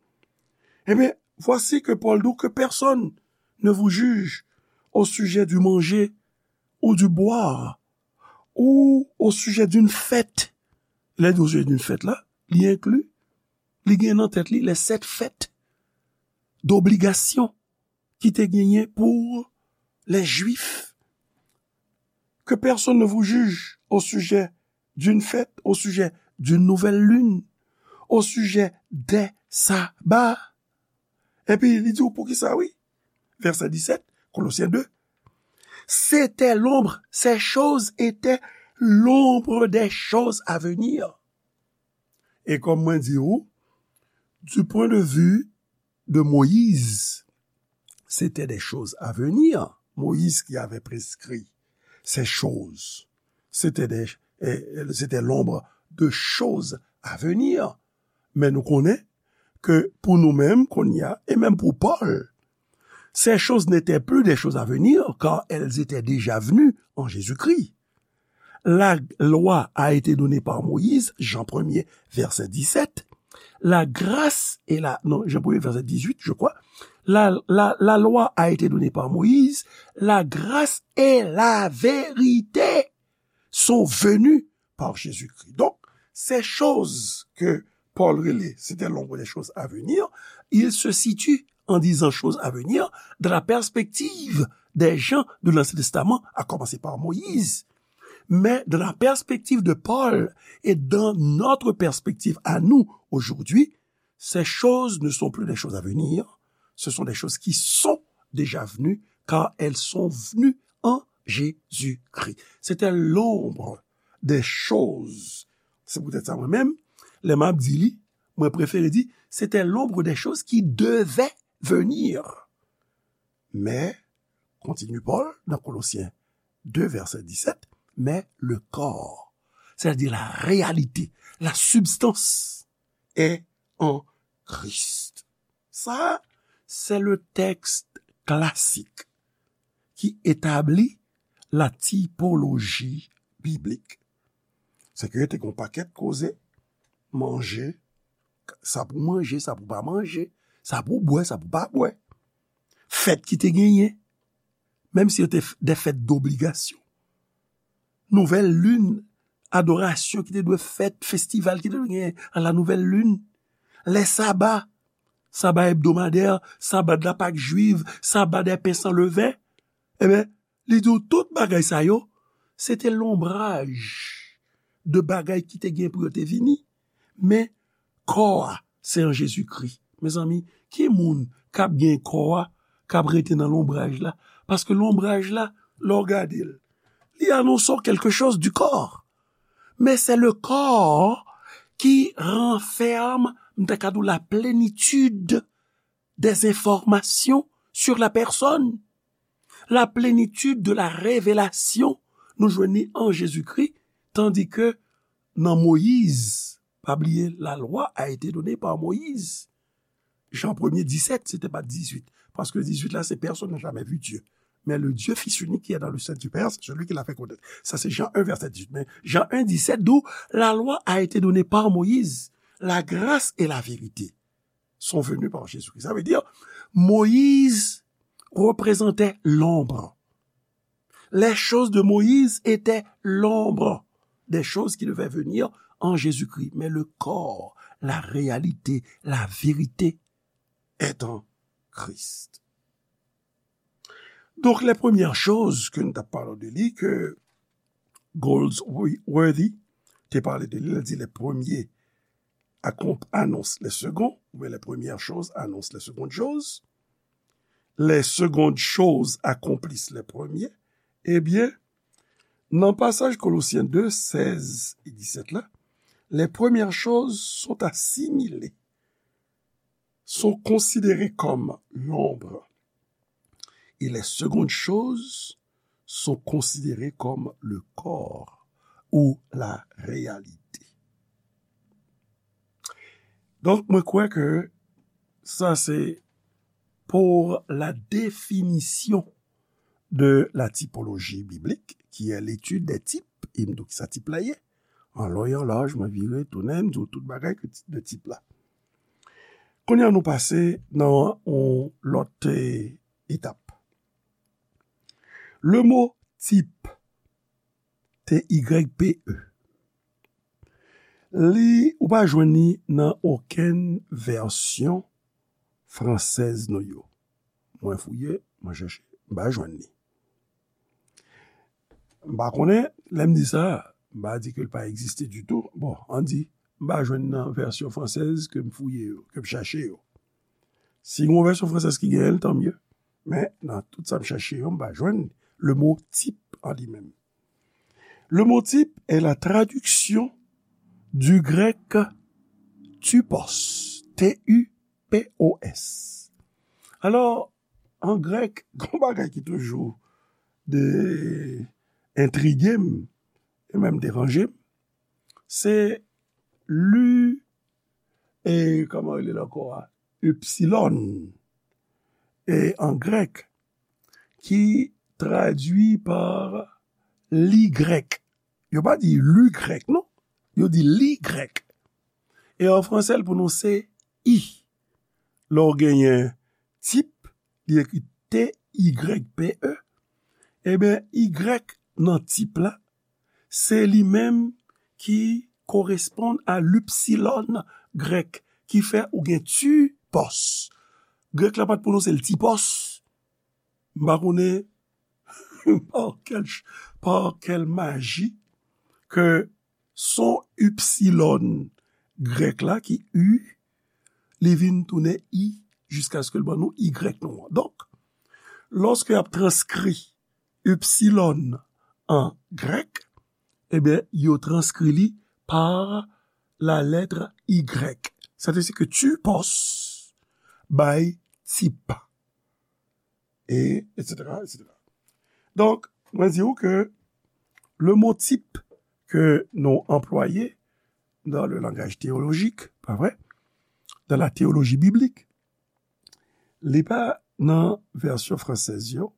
E ben, voici que Paul dit que personne ne vous juge au sujet du manger ou du boire, ou au sujet d'une fête. Lè di au sujet d'une fête la, li enkli, li gen nan tèt li les sept fêtes d'obligation ki te genyen pou les Juifs. Que personne ne vous juge au sujet d'une fête, au sujet d'une nouvelle lune, au sujet des sabbats. Epi li di w poukisa, wi. Vèsè disèt, Kolosyen de. C'était l'ombre, ces choses étaient l'ombre des choses à venir. E kòm mwen di w, du point de vue de Moïse, c'était des choses à venir. Moïse qui avait prescrit ces choses, c'était des, euh, c'était l'ombre de choses à venir. Men nou konnen ke pou nou menm, kounye a, e menm pou Pòl, ces choses n'étaient plus des choses à venir, car elles étaient déjà venues en Jésus-Christ. La loi a été donnée par Moïse, Jean premier, verset dix-sept. La grâce et la, non, Jean premier, verset dix-huit, je crois. La, la, la loi a été donnée par Moïse, la grâce et la vérité sont venues par Jésus-Christ. Donc, ces choses que Paul relait, c'était l'ombre des choses à venir, il se situe en disant choses à venir dans la perspective des gens de l'Ancien Testament, à commencer par Moïse. Mais dans la perspective de Paul et dans notre perspective à nous aujourd'hui, ces choses ne sont plus des choses à venir, ce sont des choses qui sont déjà venues, car elles sont venues en Jésus-Christ. C'était l'ombre des choses. Se poutèt sa, mwen menm, lè m ap di li, mwen prefere di, c'était l'ombre des choses qui devaient venir. Mais, continue Paul dans Colossiens deux, verset dix-sept, mais le corps, c'est-à-dire la réalité, la substance, est en Christ. Sa, se le tèks klasik ki etabli la tipoloji biblik. Se ke te gen yon pakèt koze, manje, sa pou manje, sa pou pa manje, sa pou bwè, sa pou pa bwè. Fèt ki te genyen, menm si yo te f-, de fèt dobligasyon. Nouvèl lin, adorasyon ki te dwe fèt, festival ki te dwe genyen a la nouvèl lin. Lè saba, saba ebdomadè, saba de la Pak jwiv, saba dè pen san leven. Ebyen, li di w tout bagay sa yo, se te lonbraj de bagay ki te gen pou yo te vini. Men, kò a, se an Jezikri. Mezanmi, ki moun k ap gen kò a, k ap rete nan lonbraj la? Paske lonbraj la, lè w gade l, li anonse w quelque chose du corps. Mais c'est le corps qui renferme, m ta ka di w, la plénitude des informations sur la personne. La plénitude de la révélation, nou jwenn li an Jezikri, tandi ke nan Moyiz, pa bliye, la loi a été donnée par Moïse. Jan premye disèt, se te pa dizuit. Paske dizuit la, se personne n'a jamais vu Dieu. Mais le Dieu fils unique qui est dans le sein du Père, c'est celui qui l'a fait connaître. Sa se Jan en, vèsè dizuit. Men Jan en disèt di w, la loi a été donnée par Moïse. La grâce et la vérité sont venues par Jésus-Christ. Sa vle di, Moyiz reprezante lonb. Les choses de Moïse étaient l'ombre des choses qui devaient venir en Jésus-Christ. Mais le corps, la réalité, la vérité est en Christ. Donc, les premières choses ke nou t ap pale de li, ke Goldsworthy te pale de li, li di les premiers accom-, annoncent les seconds, oubyen les premières choses annoncent les secondes choses, les secondes choses accomplissent les premiers, ebyen, nan pasaj Kolosyen de, sèz e disèt la, les premières choses sont assimilées, sont considérées comme l'ombre, et les secondes choses sont considérées comme le corps ou la réalité. Donk, mwen kwè ke sa se pour la définition de la typologie biblique, qui est l'étude des types, e m di w ki sa tip la ye. An lon e an laj, mwen vire, tounen, m di w tout bagay ke ti-, de tip la. Kounye a nou pase nan yon lòt, eh, etap. Le mot type, T Y P E, li, ou pa jwenn li nan okenn vèsyon fransèz nou yo. Mwen fouye, mwen chèche, m pa jwenn li. M pa konnen, lè m di sa, m pa di ke l pa egziste ditou. Bon, ann di, m pa jwenn nan vèsyon fransèz ke m fouye yo, ke m chache yo. Si gen yon vèsyon fransèz ki genyen l, tanmye. Men, nan tout sa m chache yo, m pa jwenn le mot type an li menm. Le mot type est la traduction du grec typos, T U P O S. Alò, an grèk, gon bagay ki toujou de entrige m, e menm deranje m, se li, e kòman rele l ankò a? Ipsilon, e an grèk, ki tradui pa li grèk. Yo pa di li grèk, non. Yo di li grèk. E an fransè, l pwononse i. Lè w genyen tip, li ekri T Y P E, ebyen, Y nan tip la, se li menm ki koresponn a lipsilòn grèk, ki fè ou gen tipòs. Grèk la pa t pwononse l tipòs. M pa konnen pa kèl ch-, pa kèl maji ke son ipsilòn grèk la ki i, li vin tounen i jiskaske l ban nou Y nou an. Donk, lòske y ap transkri ipsilòn an grèk, ebyen, yo transkri li pa la lettre Y. Sa vle di ke tipòs bay tip. E, et cetera, et cetera. Donk, mwen di w ke le mot type ke nou anplwaye dans le langage théologique, pa vre? Dans la théologie biblique, li pa nan vèsyon fransèz yo.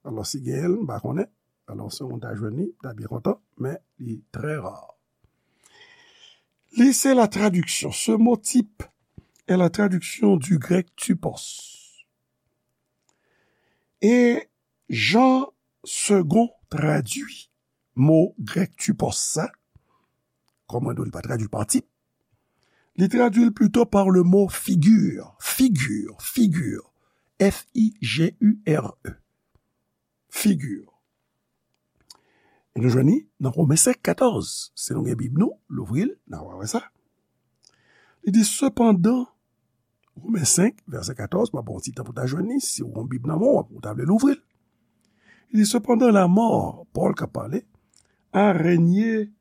Alò, si genyen l, m pa konnen. Alò, si w ta jwenn li, m ta byen kontan, men li trè ra. Li se la traduction. Ce mot type est la traduction du grec typos. E jan Segond tradui mo grèk typos sa, kòm mwen di w, li pa tradui l pa tip, li tradui l plito pa le mo figure, figure, figure, F I G U R E, figure. E nou jwenn li nan Romen senk katòz. Si nou gen Bib nou, louvri l, n a wè sa. Li di, sepandan, Romen senk, vèsè katòz, m ap ba w ti tan pou w ta jwenn li, si w gen Bib nan men w, ou ta vle louvri l. Li di, sepandan, la mort, Pòl k ap pale, a règne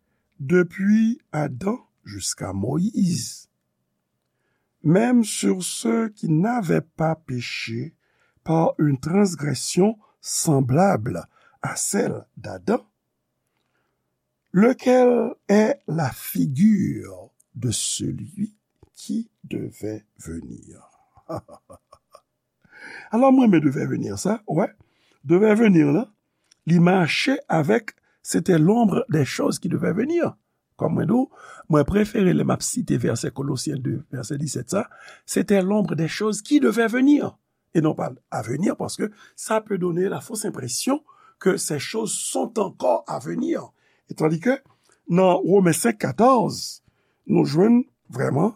depuis Adam jusqu'à Moïse, même sur ceux qui n'avaient pas péché par une transgression semblable à celle d'Adam, lequel est la figure de celui qui devait venir. Alò, mwen renmen devait venir sa, wè. Devait venir la, li mache avèk c'était l'ombre des choses qui devaient venir. Kòm mwen di w, mwen prefere lè m ap site vèsè Kolosyen de, vèsè disèt sa, c'était l'ombre des choses qui devaient venir, et non pas à venir, parce que ça peut donner la fausse impression que ces choses sont encore à venir. Et tandis que nan Romen senk katòz, nou jwenn vrèman,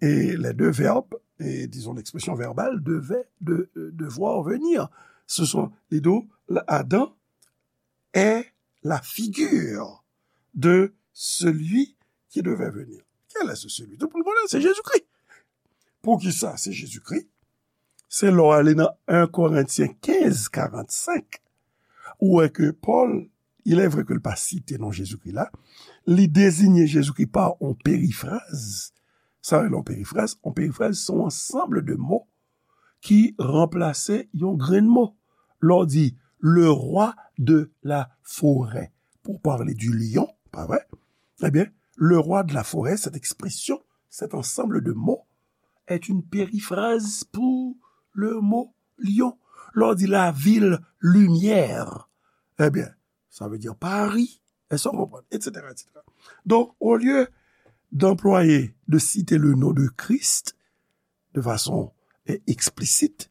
e les deux verbes, et disons l'expression verbale, devait, de, euh, devoir, venir. Ce sont les deux, Adam est la figure de celui qui devait venir. Quel est ce celui? Tout le monde connaît, c'est Jésus-Christ. Poukisa se Jezikri? Se lè w ale nan en Korentyen kenz karannsenk, ou wè ke Pòl, il est vrai ke l pa site non Jezikri la, li dezinye Jezikri pa yon perifraz. Sa rele yon perifraz? Yon perifraz se yon ansanm de mo ki ranplase yon grenn mo. lè w di le roi de la forêt, pour parler du lion, pa vre? Ebyen, le roi de la forêt, cette expression, cet ensemble de mots, est une périphrase pour le mot lion. Lè w di la ville lumière, ebyen, sa vle di Pari, èske w konprann, et cetera, et cetera. Donk, olye d'employer, de citer le nom de Christ de façon eh, explicite,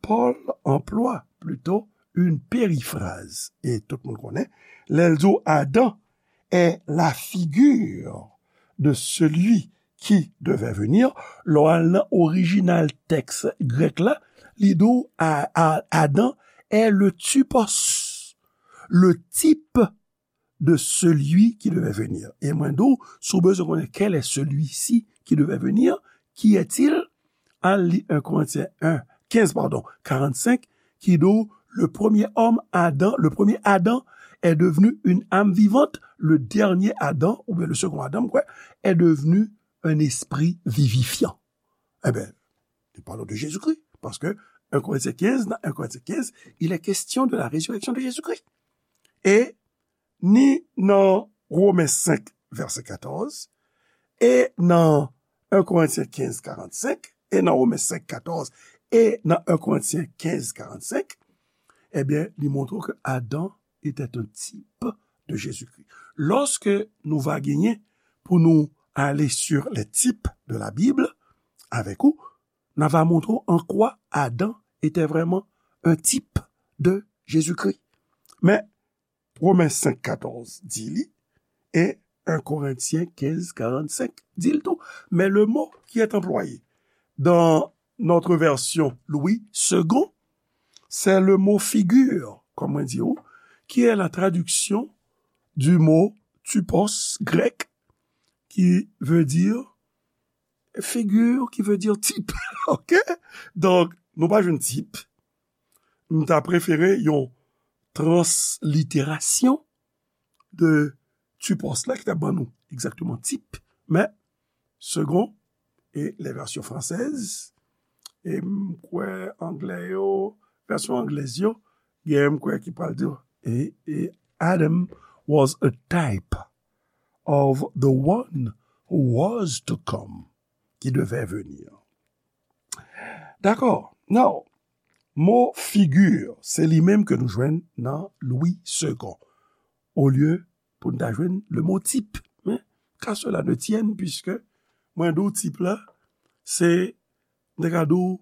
Paul emploie plutôt une périphrase. E tout moun konnen, lè l di w Adam est la figure de celui qui devait venir, lè w al nan orijinal tèks grèk la, li di w A- A- Adan est le typos, le type de celui qui devait venir. E mwen di w, si w bezwen konnen quel est celui-ci qui devait venir, qui est-il, al li un Corinthiens un, quinze, pardon, quarante-cinq, ki di w, le premier homme, Adam, le premier Adam est devenu une âme vivante, le dernier Adam, oubyen le second Adam, m kwè, est devenu un esprit vivifiant. Eben, li pale de Jezikri, paske un Corinthiens quinze, nan un Corinthiens quinze, il est question de la résurrection de Jésus-Christ. E ni nan Women senk, vèsè katòz, e nan un Corinthiens quinze, quarante-cinq, e nan Women senk, katòz, e nan un Corinthiens quinze, quarante-cinq, ebyen, li montre w ke Adan était un type de Jésus-Christ. Lòske nou va genyen pou nou ale sur les types de la Bible avèk ou, n a va montre w an kwa Adan était vraiment un type de Jésus-Christ. Men, Women senk katòz di li, e un Corinthiens quinze quarante-cinq di l tou. Mais le mot qui est employé dans notre version Louis Segond, c'est le mot figure, comme on dit, qui est la traduction du mot typos grec, qui veut dire figure, qui veut dire type. OK? Donk, nou pa jwenn tip. M ta prefere yon transliterasyon de typos la ki ta ban nou egzakteman tip, men Segond e les versions françaises, e m kwè anglè yo, vèsyon anglèz yo, gen m kwè ki pral di, e, e Adam was a type of the one who was to come, qui devait venir. Dakò. Now, mo figure, se li menm ke nou jwenn nan Louis Segond. Olye pou n ta jwenn le mot type. Men, qu'à cela ne tienne, puisque mwen di w tip la, se, m te ka di w,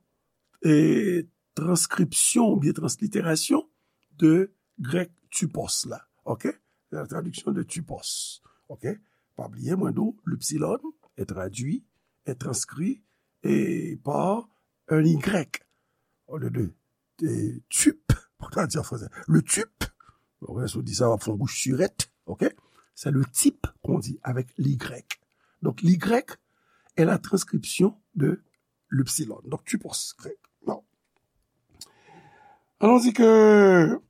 e, transkripsyon oubyen transliterasyon de grèk typos la. OK? La traduction de typos. OK? Pa bliye, mwen di w, l'epsilon est traduit, est transcrit et par un Y. Au lieu de, de type, pour traduire en français. Le type, si w di sa, w ap fè yon bouch sirèt, OK? C'est le type qu'on dit avec l'Y. Donc, l'Y est la transcription de l'epsilon. Donc, typos grec. Non. Allons-y que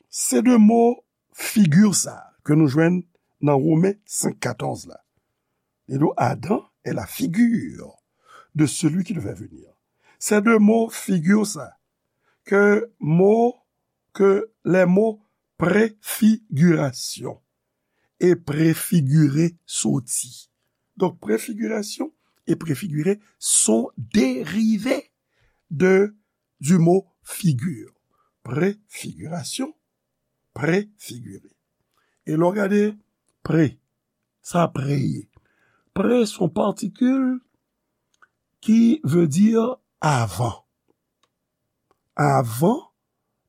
ces deux mots figure sa ke nou jwenn nan Women senk katòz la. Li di w, Adam est la figure de celui qui devait venir. Ces deux mots figure sa ke mo, ke les mots préfiguration et préfigurer soti. Donc, préfiguration et préfigurer sont dérivés de, du mot figure. Préfiguration, préfigurer. E lè w gade pré, sa pré ye. Pré se yon patikil ki vle di avan. Avan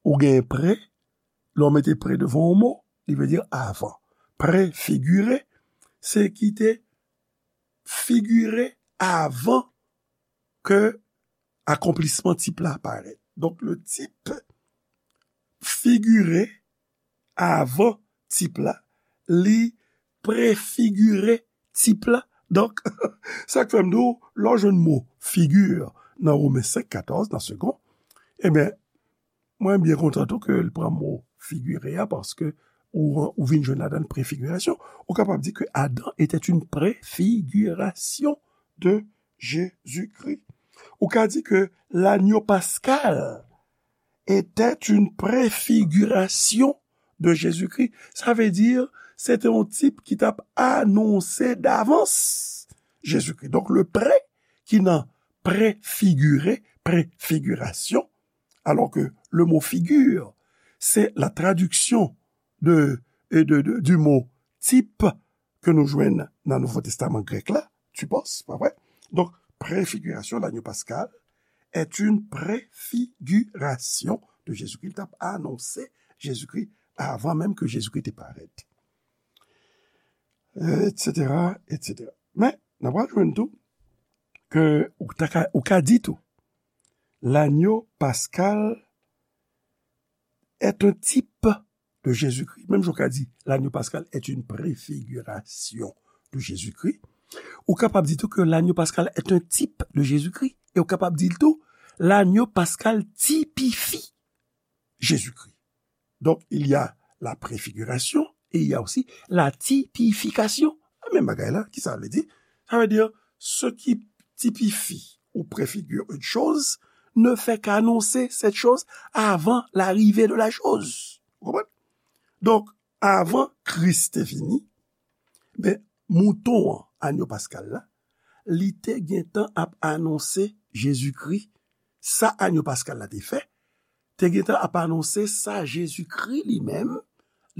ou gen pré, lè w mete pré devan yon mo, li vle di avan. Préfigurer, se ki te figire avan ke akonplisman tip la parèt. Donk, le type figure avan tip la, li prefigire tip la. Donk, sa k fè m di w, lè w jwenn mo figure nan Women senk katòz, nan Segond, ebyen, mwen byen kontan tou ke l pran mo figire a, paske ou, ou vin jwenn ladan l prefigirasyon. Ou kapab di ke Adam était une préfiguration de Jésus-Christ. Ou ka di ke l'agneau pascal était une préfiguration de Jésus-Christ. Sa vle di, se te yon tip ki t ap anonse davans Jezikri. Donk, le pré ki nan préfigurer, préfiguration, alors que le mot figure, c'est la traduction de, de, de, du mot type ke nou jwenn nan Nouvo Testaman grèk la, typos, pa vre? Donk, préfiguration, l'agneau pascal, est une préfiguration de Jésus-Christ. Li t ap anonse Jezikri avan menm ke Jezikri te parèt. Et cetera, et cetera. Men, n ap jwenn tou ke ou ta ka, ou ka di tou, l'agneau pascal est un type de Jésus-Christ. Menm jan w ka di, l'agneau pascal est une préfiguration de Jésus-Christ. Ou kapab di tou ke l'agneau pascal est un type de Jésus-Christ. E ou kapab di l tou, l'agneau pascal typifie Jésus-Christ. Donc, il y a la préfiguration et il y a aussi la typification. Menm bagay la, ki sa vle di? Sa vle di, ce qui typifie ou préfigure une chose ne fait qu'annoncer cette chose avant l'arrivée de la chose. Ou konprann? Donk, avan Kris te vini, ben, mouton an, anyo paskal la, li te gentan ap anonse Jezikri. Sa anyo paskal la te fè, te gentan ap anonse sa Jezikri li menm,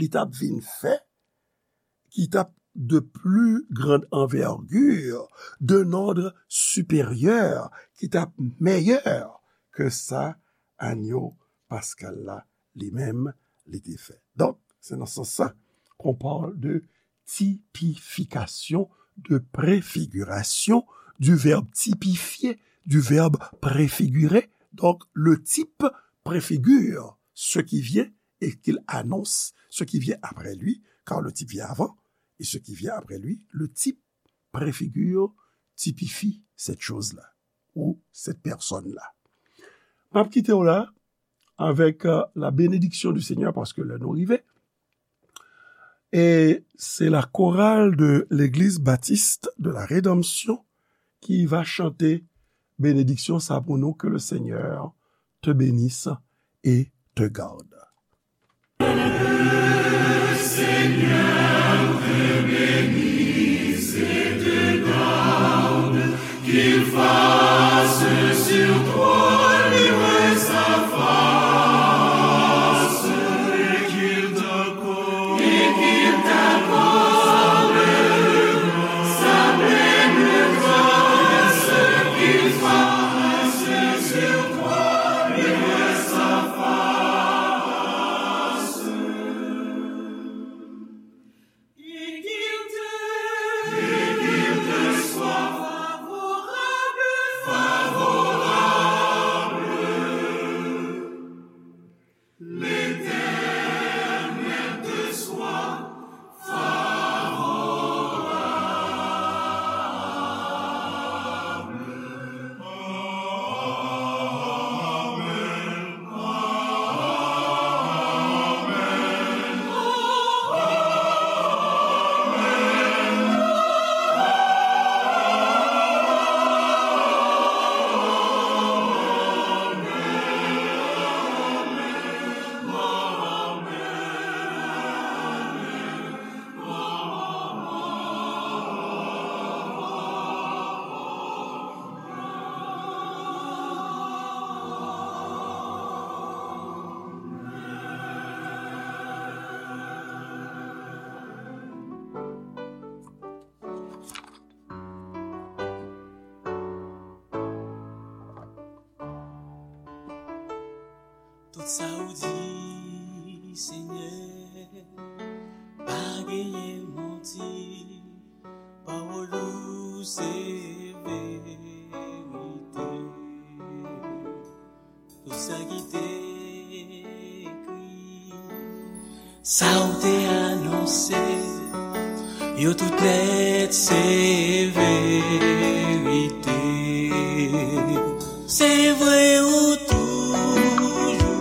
li t ap vin fè, ki t ap de plus grande envergure, d'un ordre supérieur, ki t ap mèyè ke sa anyo paskal la li menm li te fè. Donk, se nan sans sa qu'on parle de typification, de préfiguration, du verbe typifier, du verbe préfigurer. Donc, le type préfigure ce qui vient et qu'il annonce ce qui vient après lui, car le type vient avant, et ce qui vient après lui, le type préfigure, typifie cette chose-là, ou cette personne-là. M ap kite w la avec euh, la bénédiction du Seigneur, paske lè nou rive. Et c'est la chorale de l'église baptiste de la Rédemption qui va chanter bénédiction sa pou nou, que le Seigneur te bénisse et te garde. Tout sa ou di, Senyè, pa genyen manti. Pawòl ou se verite. Tout sa ki te ekri, sa ou te anonse, yo tout nèt se verite. Se vre,